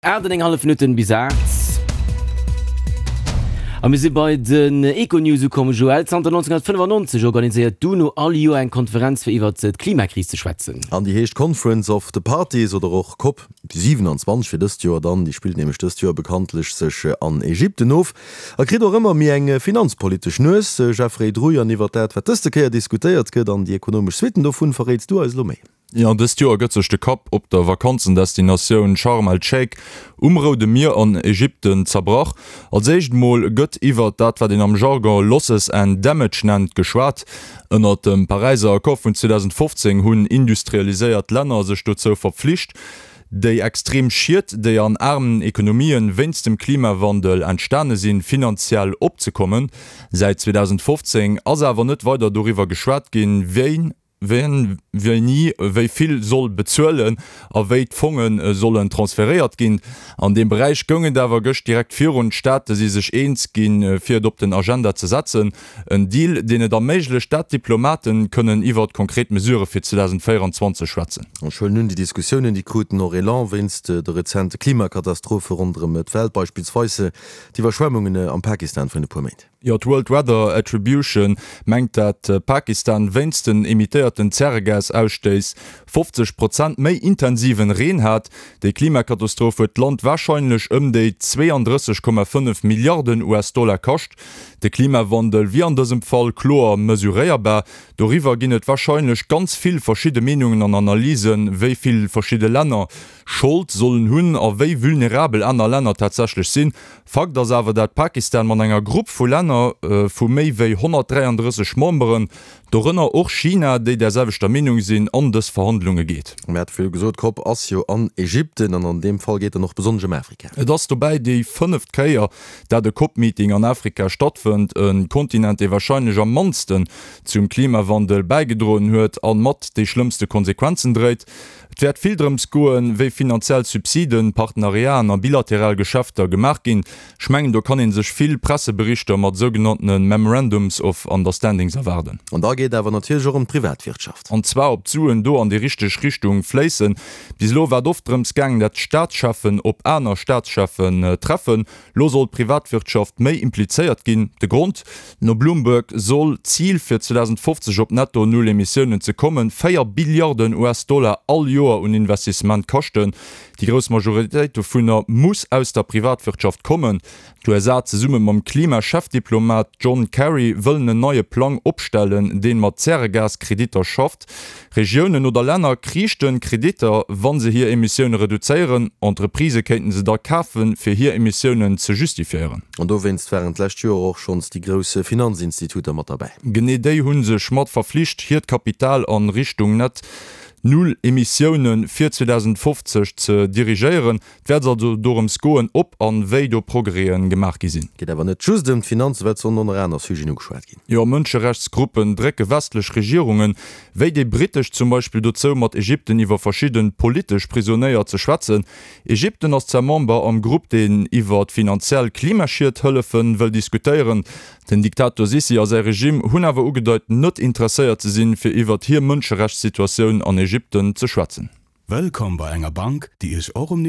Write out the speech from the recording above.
8 an eng hallef Minutten bis 8. A mir si bei den Econews ukomm. Joël, zanter 1995 organiséiert d'UNO all Joer eng Konferenz fir iwwert d'Klimakris ze schwätzen. An déi heescht Conference of the Parties oder och Cop 27 fir dëst Joer dann. Déi spillt nämlech dëst Joer bekanntlech sech an Ägypten of a kritt och ëmmer méi eng finanzpolitesch Nues. Jeffrey Druy, an iwwert dat wat dëste Kéier diskutéiert gëtt an déi ekonomesch Suitten dovun verréits du eis elo méi. Jo, dëst Joer gëtt sech de Kapp op der Vakanzendestinatioun Sharm el-Sheikh um Roude Mier an Ägypten zerbrach. Als éischt mol gëtt iwwert dat, wat een am Jargon Losses and Damage nennt, geschwat. Ënnert dem Paräiser Accord vun 2015 hunn industrialiséiert Länner sech dozou verpflicht, déi extrem Schied, déi an aarmen Ekonomien wéinst dem Klimawandel entstane sinn, finanziell opzekommen. Säit 2015 ass awer net weider doriwwer geschwat ginn, wien Wien wéini wéi vill soll bezuelen a wéi d'Fonge sollen transferéiert ginn. An deem Beräich goung et awer gëscht direkt virun. D'Staate si sech eens ginn, fir et op den Agenda ze setzen. En Deal, deen et erméiglecht, dat d'Diplomaten kënnen iwwert konkret Mesurë fir 2024 schwätzen. Ech huelen un, déi Diskussiounen, déi kruten och Elan wéinst de rezente Klimakatastrophe ronderëm d'Welt, beispillsweis d'Iwwerschwemmungen am Pakistan vrun e puer Méint. Jo, d'World Weather Attribution mengt dat Pakistan wéinst den emittéierten Zäregas-Ausstéiss 50 Prozent méi intensiven Reen hat. Déi Klimakatastroph huet d'Land warscheinlech ëm déi 32,5 Milliarden US-Dollar kascht. De Klimawandel wier an dësem Fall kloer mesuréierbar. Doriwwer ginn et warscheinlech ganz vill verschidde Meenungen an Analysen, wéi vill verschidde Länner Schold sollen hunn a wéi vulnerabel aner Länner tatsächlech sinn. Fakt ass awer dat Pakistan mat enger Grupp vu Länner vu méi wéi 133 Memberen, dorënner och China, déi där selwechter Meenung sinn, an dës Verhandlunge geet. Mir hate virdru gesot, d'Cop ass jo an Ägypten an an deem Fall geet dann och besonnesch ëm Afrika. Et ass dobäi déi fënneft Kéier, dat e Cop-Meeting an Afrika stattfënnt, e Kontinent, dee warscheinlech am mannsten zum Klimawandel bäigedroen huet a mat déi schlëmmste Konsequenzen dréit. Et wäert vill drëms goen, wéi finanziell Subsiden, Partenariaten a bilateral Geschäfter gemaach ginn. Ech mengen, do kann ee sech vill Presseberichter mat sougenanntene Memorandums of Understandings erwaarden. An da geet awer natierlech och ëm d'Privatwirtschaft. An zwar, ob d'Suen do an déi richteg Richtung fléissen. Bis elo war et oft drëms gaangen, dat d'Staatscheffen op aner Staatscheffen treffen. Lo soll d'Privatwirtschaft méi implizéiert ginn. De Grond, No Bloomberg soll d'Zil fir 2050 op netto null Emissiounen ze kommen, 4 Billiarden US-Dollar all Joer un Investissement kaschten. Déi grouss Majoritéit dovunner muss aus der Privatwirtschaft kommen. D'USA zesumme mam Klima-Chefdiplomat John Kerry wëllen en neie Plang opstellen, deen mat Zäregas-Kreditter schafft. Regiounen oder Länner kriichten Kreditter, wa se hir Emissioune reduzéieren. Entreprisë kéinten se da kafen, fir hir Emissiounen ze justifiéieren. An dowéinst waren d'lescht Joer och schonns déi grouss Finanzinstituter mat derbäi. Genee déi hu sech mat verflicht, hiert Kapital a Richtung net Null Emissioune fir 2050 ze dirigéieren. Et wäert also dorëms goen, ob an wéi do Progrèsen gemaach gi sinn. Geet awer net just ëm d'Finanzen, well et sollen och nach aner Sujeten ugeschwat ginn. Jo, Mënscherechtsgruppen drécke westlech Regierungen, wéi déi brittesch zum Beispill, dozou mat Ägypten iwwer verschidde politesch Prisonéier ze schwätzen. Ägypten ass zwar Member am Grupp, deen iwwer finanziell Klimaschied hëllefe wëll diskutéieren. Den Diktator Sissi a säi Regime hunn awer ugedeit, net interesséiert ze sinn, fir iwwert hir Mënscherechtssituatioun an Ägypten ze schwätzen. Wëllkomm bei enger Bank, déi Iech och um Niveau.